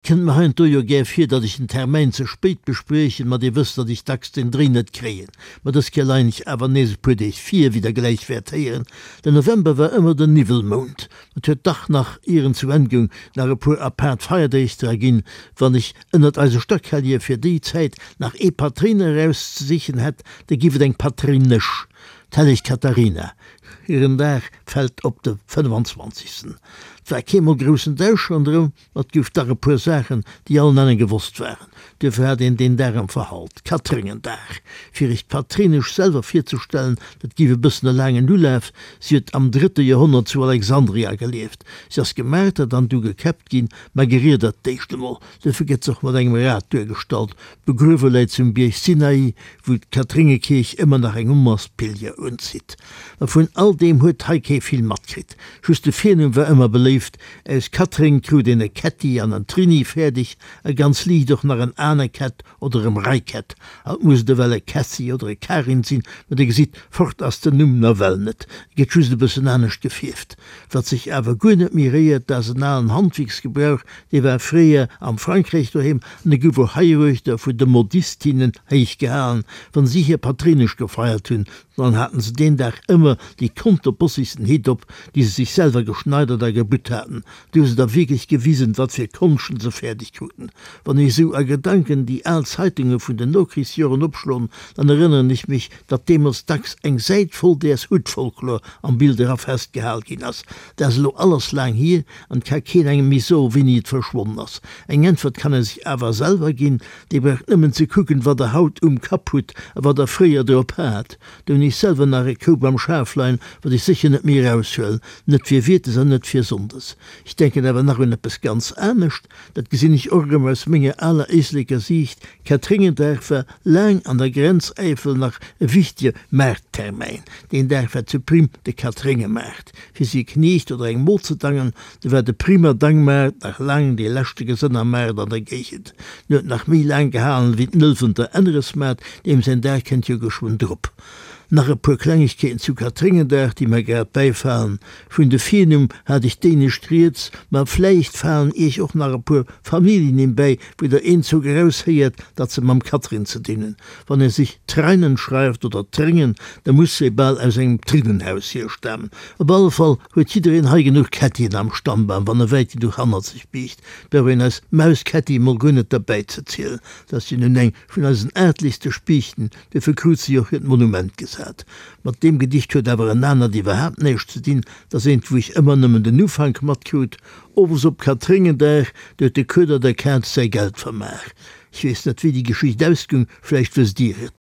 Kënnt mer heiansdo jo gär vir, datt ech den Termäin ze spéit bespriechen, ma Dir wësst, datt ech dacks den Dréi net kréien. Ma dës Kéier leien ech awer nees e puer Deeg vir, wéi Der gläich wäert héieren. Den November war ëmmer den Niwwelmount. Et huet dach nach, ier en zu Enn goung, nach e puer apaart Feierdeeg dra ginn. Wann ech ënnert eise Stackhellje fir déi Zäit nach ee Patréiner erauszesichen hätt, da giff et eng Patréinesch, d'helleg Katharina. Hiren Dag fält op de 25. 't war keemol groussen Dausch ronderëm. Ma et gouf dach e puer Saachen, déi allen Ennen gewosst waren. Duerfir hat een deen Dag am Verhalt, Katréngendag. Fir iech d'Patréinesch selwer virzestellen, dat giff e bëssen e laangen Ulaf, si huet am drëtte Joerhonnert zu Alexandria gelieft. Si ass gemartert an du gekäppt ginn, ma geriedert d'éischt emol. Duerfir gëtt se och mat engem Rad duergestallt. Begruewe läit se um Bierg Sinai, wou d'Kathréngekierch ëmmer nach eng Onmass Pilger unzitt. Ma vun all deem huet hei kee vill matkritt. Just de Virnumm war ëmmer beléift, Aus Katréng krut een e Kätti an en Trini fäerdeg a ganz liicht och nach en Anekett oder e Mreikett. Haut muss et ewell e Kässi oder e Karin sinn, ma Dir gesitt, fort ass den Numm nawell net, e gëtt just e bëssen anescht gefierft. Wat sech awer guer net méi réiert, dat ass en alen Handwierksgebrauch, dee war fréier am Frankräich doheem an e gouf och heiruechter vun de Modistinnen héich gehalen, wann si hir Patréinesch gefeiert hunn. Dann haten se deen Dag ëmmer déi konterbossigsten Hitt op, déi se sech selwer geschneidert a gebutt haten. Du hu se da wierklech gewisen, wat fir Konschten se fäerdeg kruten. Wann ech esou a Gedanken déi al Zeitunge vun den Nokrichsjoren opschloen, dann erënneren ech mech, datt deemools dacks eng Säit voll däers Huttfolklor am Bild era festgehal ginn ass. Dat ass elo alles laang hier an et ka keen engem méi soen, wéini et verschwonnen ass. Eng Äntwert kann e sech awer selwer ginn, Dir braucht nëmmen ze kucken, wat der haut um Kapp hutt a wat der fréier drop hat. Do hunn ech selwer nach e Koup am Schaf leien, wat ech sécher net méi eraushuelen, net fir Wiertes an net fir Sonndes. Ech denken awer nach un eppes ganz anescht, dat gesinn ech och erëm aus menger aler Éisleker Siicht, Katréngendag war laang an der Grenzäifel nach e wichtege Maarttermäin. Deen Dag war zu Prim de Katréngemaart. Fir si e Kniecht oder eng Mod ze dangen, do war de Primer Dangmaart nach laang dee leschte Gesënnermaart an der Géigend. En huet nach méi laang gehalen ewéi den Ëlwenter Änneresmaart, deem säin Dag kënnt jo geschwënn drop. Nach e puer Klengegkeeten zu Katréngendag, déi mer grad bäifalen. Vun de Virnumm hat ech d'éinescht rieds, ma vläicht falen iech och nach e puer Familljennimm bäi, wou der eenzock eraushéiert, datt se mam Katrin ze dinn hunn. Wann ee sech Treinen schreift oder Tréngen, da muss ee bal aus engem Trinnenhaus hierstamen. Op alle Fall huet jiddereen hei genuch Kettien am Stammbam, wann e wäit genuch hannert sech biegt. Brauch een eis Maus Ketti mol guer net derbäi ze zielen. Dat ass jo nun eng vun eisen aartlichste Spiichten, duerfir krut se jo och hiert Monument gesat. Mat deem Gedicht huet awer en anert iwwerhaapt näischt ze dinn, 't ass eent, wou ech ëmmer nëmmen den Ufank matkrut, Owes op Katréngendag, do huet de Kueder der Kaz säi Geld vermaach. Ech weess net, wéi déi Geschicht ausgung, vläicht wësst Dir et.